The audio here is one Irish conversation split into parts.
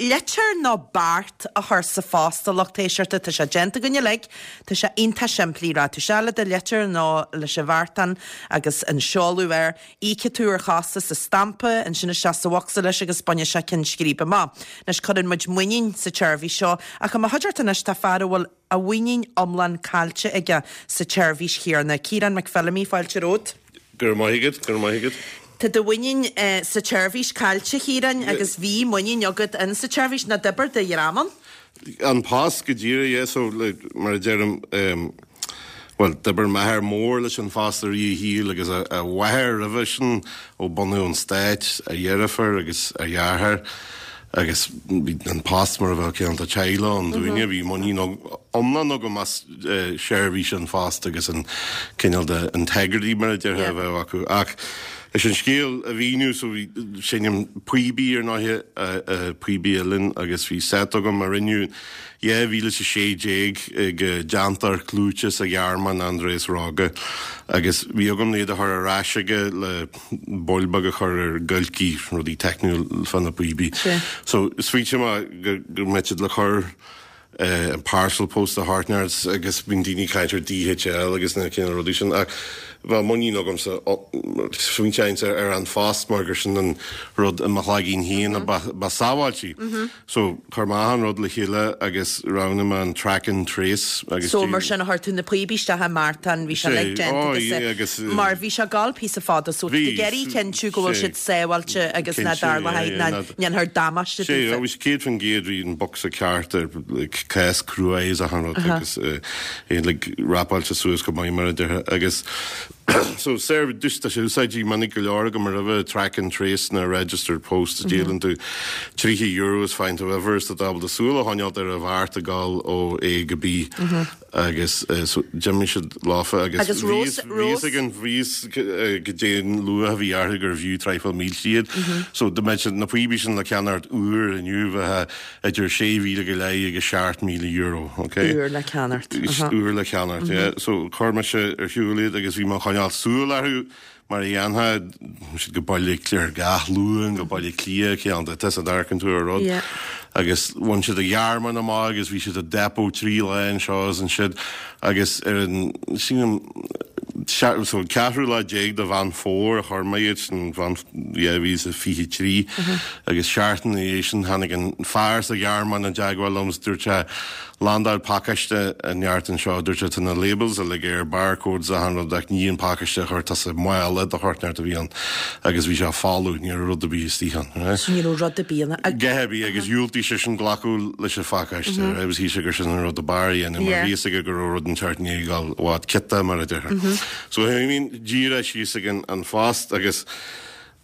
Litir nó beart a chur sa phost, a lucht éisteachta, tá sé déanta againn uilig, tá sé iontach simplí, rachaidh tú isteach le do litir nó leis an bheartán agus an seoladh air, íocfaidh tú ar chostas an stampa, ansin isteach sa bhocsa leis agus bainfidh sé ceann scríbe amach. Anois cuireann muid muinín sa tseirbhís seo ach i mo chuideachta anois tá fear a bhfuil a mhuinín iomlán caillte aige sa tseirbhís chéanna. Ciarán McPhillamy, fáilte romhat. Go raibh maith agat, go raibh maith agat. Tá do mhuinín sa tseirbhís caillte, a Chiaráin, agus bhí muinín agat in sa tseirbhís, nó d'oibir do dhream ann. An Post go díreach, yeah, so like, mar a deirim, um, bhuel, d'oibir m'athair mór leis an Phost i rith a shaoil agus a, a mháthair roimhe sin ó bunú an stáit, a dheirfiúr agus a dheartháir. Agus bhí an post mar a bheadh cineál de teaghlach ann dúinne, bhí muinín iomlán agam as seirbhís an phost agus an cineál de integrity mar a déarfá a bheadh acu. Ach leis an scéal a mhíniú, so bhí, seinnim píobaí ar ndóighe, píobaí uilleann agus bhí set agam a rinneadh 2016 ag déantóir clúiteach sa Ghearmáin, Andreas Rogge, agus bhí agam iad a chur ar ais aige le baill beag a chur ar giolcaí, rudaí teicniúil fá na píobaí. So smaointigh mé go go mbeadh siad le cur an parcel post a theacht neart agus bíonn daoine ag caint ar DHL agus na cineál rudaí sin ach bheadh muinín agamsa smaointeoinnse ar An Phost mar gur sin an rud i mo chloigeann féin a ba sábháiltí. So, chuir mé achan rud le chéile agus roghnaigh mé an track and trace agus So, mar sin, chuir tú na píobaí isteach i mbeartán, bhí sé uilig déanta agus é, agus mar bhí sé ag gabháil píosa fada, so tá tú ag iarraidh cinntiú go bhfuil siad sábháilte agus ná dtarlóidh, ná ndéanfar damáiste daofa. Sea, bhí sé 100% bhí an bocsa ceart ar like cás crua is achan rud agus é like wrapáilte suas go maith mar a déarfá agus So, seirbhís, tá sé úsáidte minic go leor agam roimhe, track and trace na registered post, díolann tú €30 is faigheann tú uimhir is tá tú ábalta súil a choinneáilt ar an bheart ag dul ó A go B agus so d'imigh siad leofa agus bhí fhios ag an bhí fhios goidé an luach a bhí orthu gurbh fhiú traidhfil mílte iad. So dá mbeadh na píobaí sin le ceannacht úr inniu bheadh idir 6,000 go leith agus €7,000, ok? Úr le ceannacht. Úr le ceannacht, yeah. So chuir mise ar shiúl iad agus bhí mé ag coinneáil súil orthu mar a dhéanfá, bhí siad go Baile Cliath gach Luan, go Baile Cliath, ceann de, tusa a amharcann tú ar rud. Agus bhain siad an Ghearmáin amach agus bhí siad i depot trí lá anseo is ansiúd agus ar an, sílim, so an ceathrú lá déag de Mheán Fómhair a chuir mé iad sin, 2023 agus seachtain ina dhiaidh sin tháinig an fear sa Ghearmáin i dteagmháil liom is dúirt sé landáil pacáiste an neart anseo, dúirt sé tá na labels uilig air, barcodes achan rud ach ní an pacáiste a chuir tusa mála de shórt neart a bhí ann agus bhí sé folamh, ní raibh rud ar bith istigh ann. So ní raibh rud ar bith ann. A dhath ar bith agus dhiúltaigh seisean glacadh leis an phacáiste, right, agus shíl sé gur sin an rud ab fhearr a dhéanamh mar bhí fhios aige go raibh rud inteacht i ndiaidh a dhul i bhfad ciotach mar a déarfá. So tháinig díreach síos ag an phost agus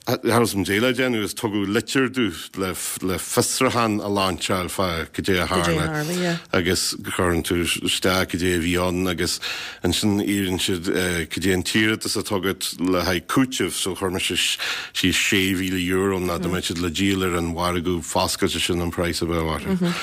cha raibh fhios a'm goidé le déanamh agus tugadh litir domh le le fiosrúchán a lainseáil fá goidé a tharla agus cuireann tú isteach goidé a bhí ann agus ansin iarrann siad goidé an t-iarratas atá agat le haghaidh cúitimh so chuir mise síos €6,000 ná dá mbeadh siad le díol ar an mhargadh foscailte sin an praghas a bheadh orthu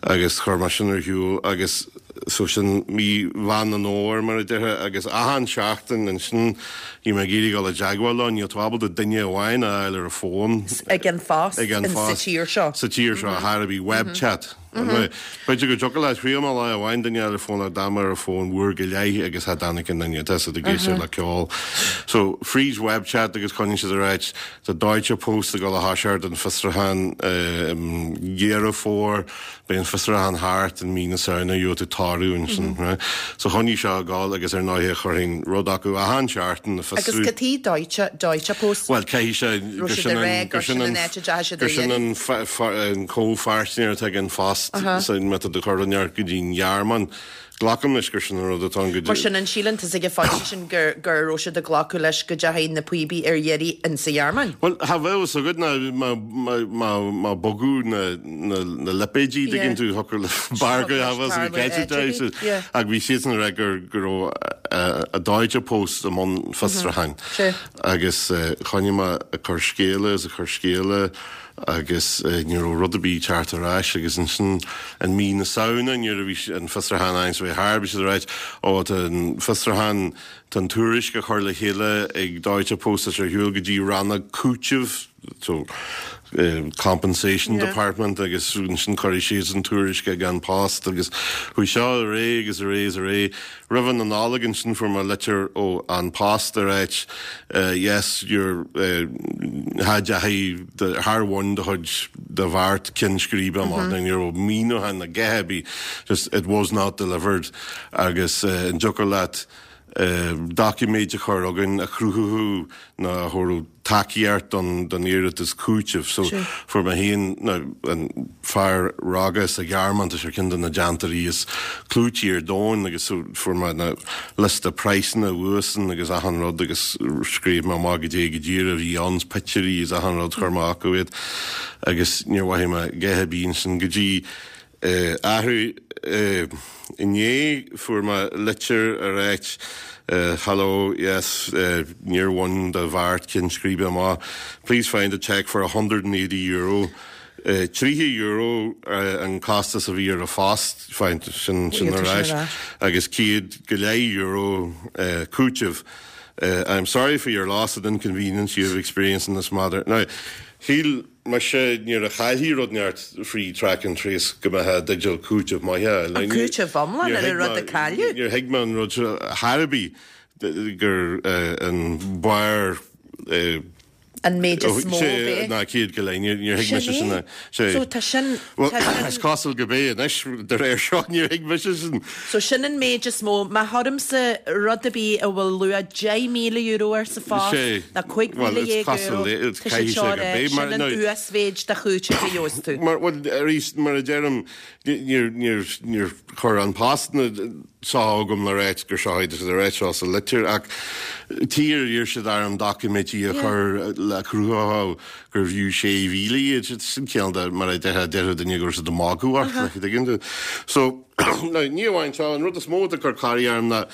agus chuir mé sin ar shiúl agus So sin mí Mheán an Fhómhair, mar a déarfá, agus achan seachtain ansin bhí mé ag iarraidh dul i dteagmháil leo, níl tú ábalta duine amháin a fháil ar an bhfón. Ag an phost Ag an phost. Sa tír seo. Sa tír seo, thar a bhí web chat. B'fhéidir go dtiocfadh leat, thriail mé lá amháin duine a fháil ar an bhfón ach d'fhan mé ar an bhfón uair go leith agus cha dtáinig aon duine, tá siad ag éisteacht le ceol. So fríd web chat agus coinníonn siad ag ráit, tá Deutsche Post ag dul a thoiseacht an fiosrúchán i Deireadh Fómhair, Beidh an fiosrúchán thart i mí na Samhna, gheobhaidh tú toradh ansin, right? So choinnigh seo ag gabháil agus ar ndóighe chuirfinn rud acu achan seachtain ag fiosrú. Agus cad chuige Deutsche, Deutsche Post? Bhuel, caithfidh sé gur sin an, gur sin an, gur sin an, an comhpháirtnéir atá ag an Phost so má tá tú ag cur rud inteacht go dtí an Ghearmáin. Glacaim leis gur sin an rud atá ann go Mar sin, an síleann tusa ag an phointe sin gur go raibh siad ag glacadh leis go dteachaigh na píobaí ar iarraidh insa Ghearmáin? Bhuel, cha bheadh fhios agat ná má, má, má, má bogadh na, na, na lipéidí, dtuigeann tú, thiocfadh le barr go cha bheadh fhios agat cé acu de, so, ach bhí siadsan ag rá gur, go raibh a Deutsche Post i mbun fiosrúcháin. Agus choinnigh mé ag cur scéala is ag cur scéala agus ní raibh rud ar bith ag teacht ar ais agus ansin in mí na Samhna nuair a bhí an fiosrúchán ann so bhí thar bhí siad ag ráit ó tá an fiosrúchán tá an tuairisc á chur le chéile ag Deutsche Post tá sé ar shiúl go dtí rannóg cúitimh so. Compensation Department agus ansin cuirfidh siadsan tuairisc ag An Post agus chuaigh seo ar aghaidh agus ar aghaidh is ar aghaidh. Roimh na Nollag ansin fuair mé litir ó An Post ag ráit yes your cha dteachaigh char bhain do chuid do bheart ceann scríbe amach ní raibh míniúchán ná a dhath ar bith just it was not delivered agus an dtiocfadh leat doiciméid a chur chugainn a chruthódh nó a thabharfadh tacaíocht don don iarratas cúitimh. So fuair mé féin nó an fear rogha sa Ghearmáin, tá sé ar ceann de na déantóirí is clúití ar domhan agus so fuair mé na liosta praghsanna uaidhsean agus achan rud agus scríobh mé amach goidé go díreach a bhí ann, pictiúirí is achan rud chuir mé chucu iad agus níor mhothaigh mé a dhath ar bith ansin go dtí Athrú inné fuair mé litir ag ráit Hello, yes, níor bhain do bheart ceann scríbe amach. Please find a cheque for €180. €30 an costas a bhí ar an phost, find sin sin ar ais, agus €100 cúiteamh. I'm sorry for your loss and inconvenience you have experienced in this matter. Now, shíl mise nuair a chaillfí rud inteacht frí track and trace go mbeifeá i dteideal cúiteamh maith a fháil. An cúiteamh iomlán ar an rud a cailleadh? Níor thuig mé an rud seo chor ar bith gur an barr an méid is mó a bheadh. Ná 150, níor thuig mise sin. Sin é. So tá sin, Bhuel, is cosúil gurb é anois, de réir seo, níor thuig mise sin. So sin an méid is mó. Má chuirimse rud ar bith a bhfuil luach €10,000 air sa phost, ná €15,000, tá siad seo a rá, sin an uasmhéid de chúiteamh a gheobhas tú. Mar, bhuel, arís, mar a deirim, níor, níor, níor chuir An Post na seo chugam le ráit gur seo iad, tá siad ag ráit seo sa litir, ach tír iarr siad orm doiciméidí a chur le cruthódh gurbh fhiú 6,000 iad, sin cineál de, mar a déarfadh duine go raibh siad ag magadh ort, like, an dtuigeann tú? So, now, ní amháin seo, an rud is mó atá ag cur corraí orm ná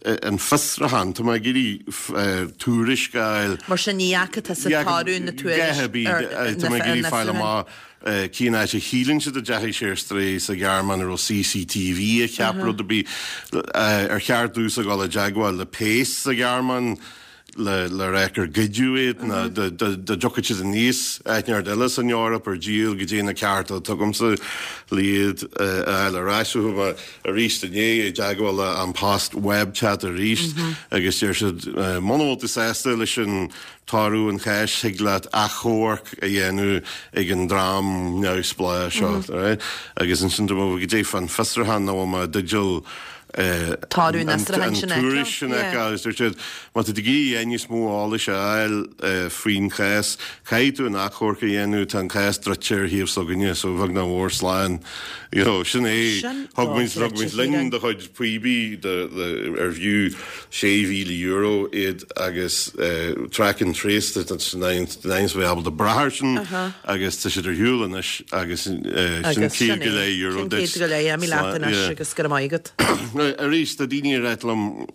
an fiosrúchán, tá mé ag iarraidh tuairisc a fháil. Mar sin, ní fhaca tusa toradh na tuairisc ar na Tá mé ag iarraidh fáil amach cén áit a shíleann siad a dteachaigh sé ar strae sa Ghearmáin, an raibh CCTV a cheap rud ar bith, ar cheart domhsa dul i dteagmháil le péas sa Ghearmáin le le rá gur goideadh iad nó dá dtiocfadh siad aníos áit inteacht eile san Eoraip ar díol goidé na cearta atá agamsa le iad a fháil ar ais. So chuaigh mé arís inné i dteagmháil le An Post web chat arís agus deir siad muna bhfuil tú sásta leis an toradh an cháis thig leat achomharc a dhéanamh ag an dream neamhspleách seo. Agus ansin dá mba goidé fán fiosrúchán nó bhfuil mé i dteideal Toradh an fhiosrúcháin sin a fheiceáil. An tuairisc sin a fheiceáil agus dúirt siad, má tá tú ag iarraidh níos mó eolais a fháil faoin chás, caithfidh tú an achomharc a dhéanamh, tá an cás druidte ar thaobh s'againne, so bheag nach mhór slán. You know, sin é. Thug muid, thug muid linn do chuid píobaí ar bhfiú €6,000 iad agus track and trace, tá siad ábalta brath air sin agus tá siad ar shiúl anois agus sin €100 duit. Sin €150, imigh leat anois agus go raibh maith agat. Arís, tá daoine ag ráit liom,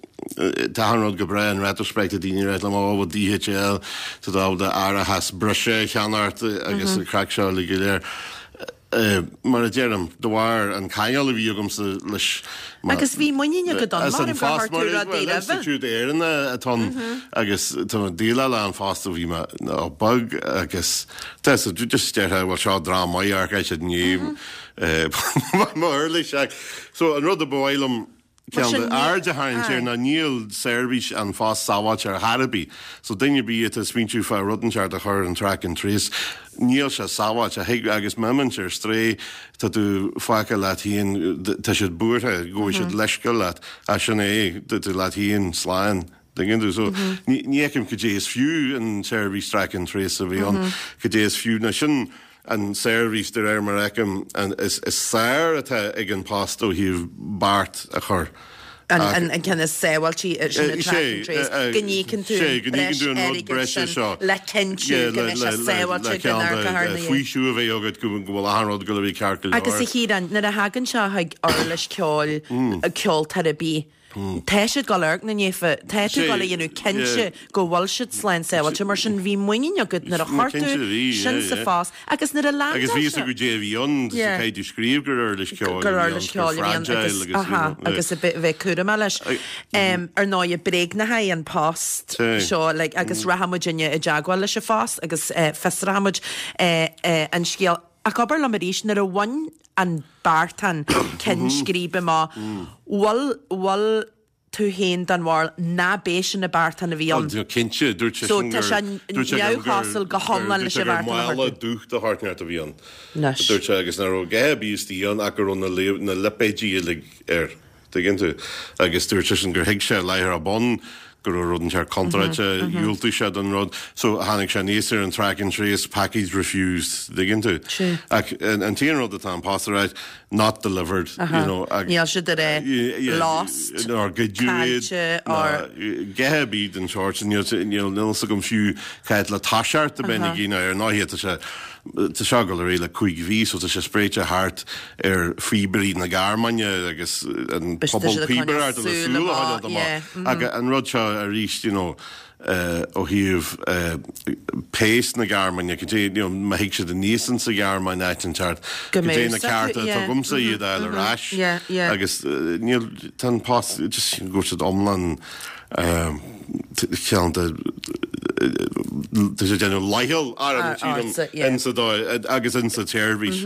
tá achan rud go breá in retrospect, tá daoine ag ráit liom, ó, bhuel DHL, tá tú ábalta árachas breise a cheannacht agus an craic seo uilig go léir. Mar a deirim, de bharr an ceangal a bhí agamsa leis Agus bhí muinín agat ann, mar gur chuir tú rudaí roimhe. Institiúid Éireannach atá ann agus tá mé ag déileáil le An Post ó bhí mé beag agus tá so just déarfá bhuel seo dream maith amharc siad i ndiaidh mo uirlis ach so an rud a ba mhaith liom Ceann de aird a tharraingt air ná níl seirbhís An Phost sábháilte ar chor ar bith. So duine ar bith atá ag smaointiú fá rud inteacht a chur ar an track and trace, níl sé sábháilte. Thig, agus má imíonn sé ar strae, tá tú fágtha leat féin, tá siad buartha go bhfaighidh siad leithscéal leat. Ach sin é, tá tú leat féin slán. Tuigeann tú? So ní fheicim cad é is fiú an tseirbhís track and trace a bheith ann, cad é is fiú. Now sin an tseirbhís de réir mar a fheicim is fearr atá ag An Post ó thaobh beart a chur. An ceann is sábháiltí sin an track and trace, go n-íocann tú an breis airgid sin le cinntiú go mbeidh sé sábháilte go n-amharcfar ina dhiaidh. Faoiseamh a bheith agat go bhfuil achan rud ag dul a bheith ceart go leor. Agus a Chiaráin, nuair a thagann seo chuig uirlis ceoil, ceoltóir ar bith. Tá siad ag dul a amharc ina ndiaidh, tá tú ag dul a dhéanamh cinnte go bhfuil siad slán sábháilte, mar sin bhí muinín agat nuair a chuir tú sin sa phost agus nuair a leandáil sé. Agus bhí fhios agat goidé a bhí ann, caithfidh tú scríobh gur uirlis ceoil a bhí ann, gur fragile agus you know. Agus a bheith cúramach leis. Ar ndóigh, bréagnaithe an post seo like agus rachaidh muidinne i dteagmháil leis an phost agus fiosróidh muid an scéal. Ach abair liom arís, nuair a bhain an beartán ceann scríbe amach, bhfuil, bhfuil tú féin den bharúil ná b'é sin an beartán a bhí ann? Ó, cinnte, dúirt sé So sin tá gur, sé dúirt sé gur, neamhchosúil go hiomlán dúirt leis sé an gur bheartán a chuir mála tú. dubh de shórt inteacht a bhí ann. Anois. Dúirt sé agus nach raibh a dhath ar bith istigh ann ach go raibh na, na lipéidí uilig air. Tuigeann tú? Agus dúirt seisean gur thuig sé láithreach bonn go raibh rud inteacht contráilte, dhiúltaigh sé don rud. So tháinig sé aníos ar an track and trace, package refused, tuigeann tú? Ach an t-aon rud atá An Post a ráit, not delivered, you know. Níl siad ag rá lost, nár goideadh iad, ná a dhath ar bith den tsórt sin. Níl fhios agam fiú cá fhad le toiseacht a bheinn ag iarraidh ar ndóigh tá sé Tá seo ag dul ar aghaidh le 5 mhí so tá sé spréite thart ar phíobairí na Gearmáine agus an pobal píobaireachta le súil a choinneáil amach. Ach an rud seo arís you know ó thaobh péas na Gearmáine, cad é, you know, má thig siad aníos insa Ghearmáin áit inteacht, cad é na cearta atá agamsa iad a fháil ar ais agus níl, tá an post just go bhfuil siad iomlán ceann de tá sé déanamh leithcheal orm sílim insa dóigh agus insa tseirbhís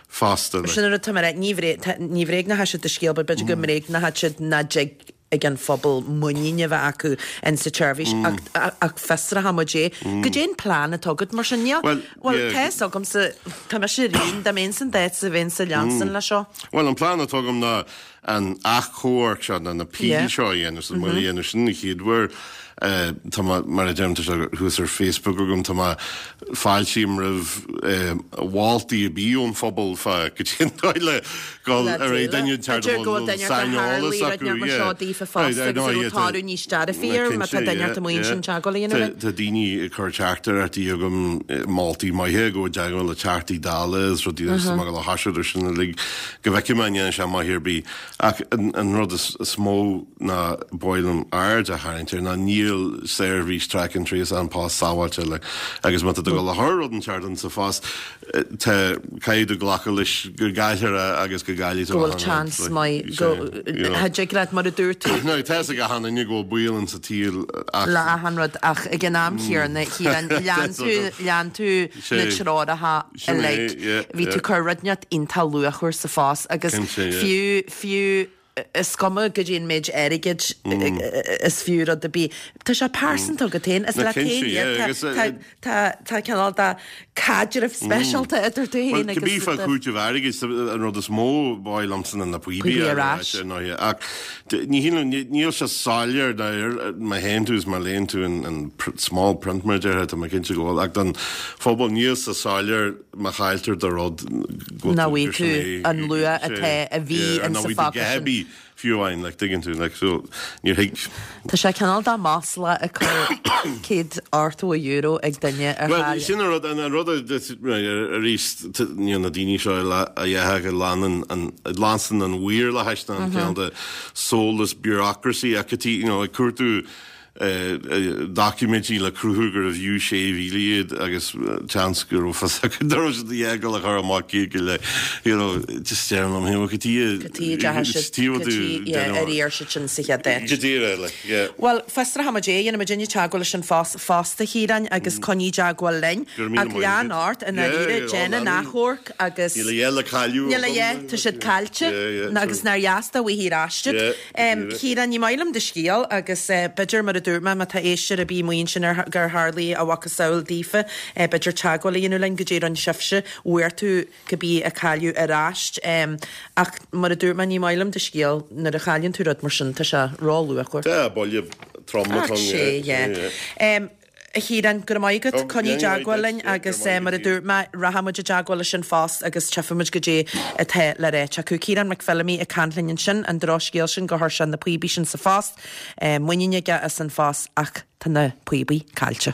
fosta. Sin an rud atá mé a rá, ní ní bhréagnóidh siad do scéal but b'fhéidir go mbréagnóidh siad nach dtig ag an phobal muinín a bheith acu insa tseirbhís ach fiosróidh muid é. Goidé an plean atá agat mar sin? Níl, bhuel tá fhios agamsa, tá mise ar aon, dá mbeinn san d'áit sa bheinn sa leansan le seo. Bhuel an plean atá agam ná an achomharc seo, nó an appeal seo a dhéanamh, so mé a dhéanamh sin an chéad uair. Tá mé, mar a deirim, tá sé thuas ar Facebook agam, tá mé, fáiltím roimh mholtaí ar bith ón phobal fá goidé an dóigh le dul ar aghaidh duine inteacht a bhfuil saineolas acu, yeah. Seo daofa fosta agus a raibh toradh níos dearfaí air má tá duine ort amuigh ansin teagmháil a dhéanamh linn. Tá daoine ag cur teachtaireachtaí chugam, moltaí maithe, go dteagmháil le Teachtaí Dála is rudaí is tá mé ag dul a thoiseacht ar sin uilig. Go bhfeicfidh mé an ndéanfaidh sé maith ar bith. Ach an rud is mó ná ba mhaith liom aird a tharraingt air ná níl seirbhís track and trace An Post sábháilte like agus má tá tú ag dul a chur rud inteacht insa phost tá caithfidh tú glacadh leis go gcaillfear é agus go gcaillfidh tú Go bhfuil chance maith go cha dtig leat mar a dúirt tú. Now tá fhios ag achan duine go bhfuil baol insa tsaol ach. Le achan rud ach ag an am chéanna Ciarán lean tú lean tú na treoracha uilig. Bhí tú ag cur rud inteacht iontach luachmhar sa phost agus fiú, fiú, is cuma goidé an méid airgid is fiú rud ar bith, tá sé pearsanta agat féin, is leat féin iad, tá, tá cineál de caidreamh speisialta idir tú féin agus. Bhuel, cibé fá chúiteamh airgid, an rud is mó ba mhaith liomsa ná na píobaí ar ais, ar ndóigh, ach ní shílim, níl sé soiléir má théann tú is má léann tú an small print mar a déarfá, tá mé cinnte go bhfuil, ach don phobal níl sé soiléir má chailltear do rud go Nach bhfaighidh tú an luach atá a bhí insa phacáiste sin. Fiú amháin, like, tuigeann tú, like, so, níor thuig. Tá sé cineál de masla ag cur €180 ag duine ar Bhuel, chaill. sin an rud, an rud arís, níl na daoine seo a dhéarfadh a leanann an, a leanann an mhaorlathais ná an cineál de soulless bureaucracy acu, you know, ag cuartú doiciméidí le cruthú gurbh fhiú 6,000 iad agus seans go raibh fios acu nach raibh siad ag dul a chur amach céad go leith you know just deirim liom féin cad chuige cad chuige ar iarr siad sin sa chéad áit. Go díreach like yeah. Bhuel fiosróidh muid é, dhéanfaidh muidinne teagmháil leis An Post fosta a Chiaráin agus coinnigh i dteagmháil linn. Ach lean ort i ndáiríre, déan an achomharc agus. Níl a dhath le cailleadh Níl a dhath, tá siad caillte agus nár dheas dá bhfaighfí ar ais iad. Chiaráin, ní maith liom do scéal agus b'fhéidir, mar a dúirt mé, má tá éisteoir ar bith amuigh ansin ar gur tharlaigh a mhacasamhail daofa, b'fhéidir teagmháil a dhéanamh linn goidé a rinne sibhse, bhfuair tú cibé a cailleadh ar ais. Ach mar a dúirt mé, ní maith liom do scéal, nuair a chailleann tú rud mar sin, tá sé ró-luachmhar. Tá, buille trom atá ann, yeah. Yeah. A Chiaráin, go raibh maith agat. Coinnigh i dteagmháil linn agus mar a dúirt mé, rachaidh muid i dteagmháil leis An Phost agus tchífidh muid goidé atá le ráit acu. Ciarán Mac Feilimí ag caint linn ansin, an drochscéal sin gur chuir sé na píobaí sin sa phost, muinín aige as An Phost ach tá na píobaí caillte.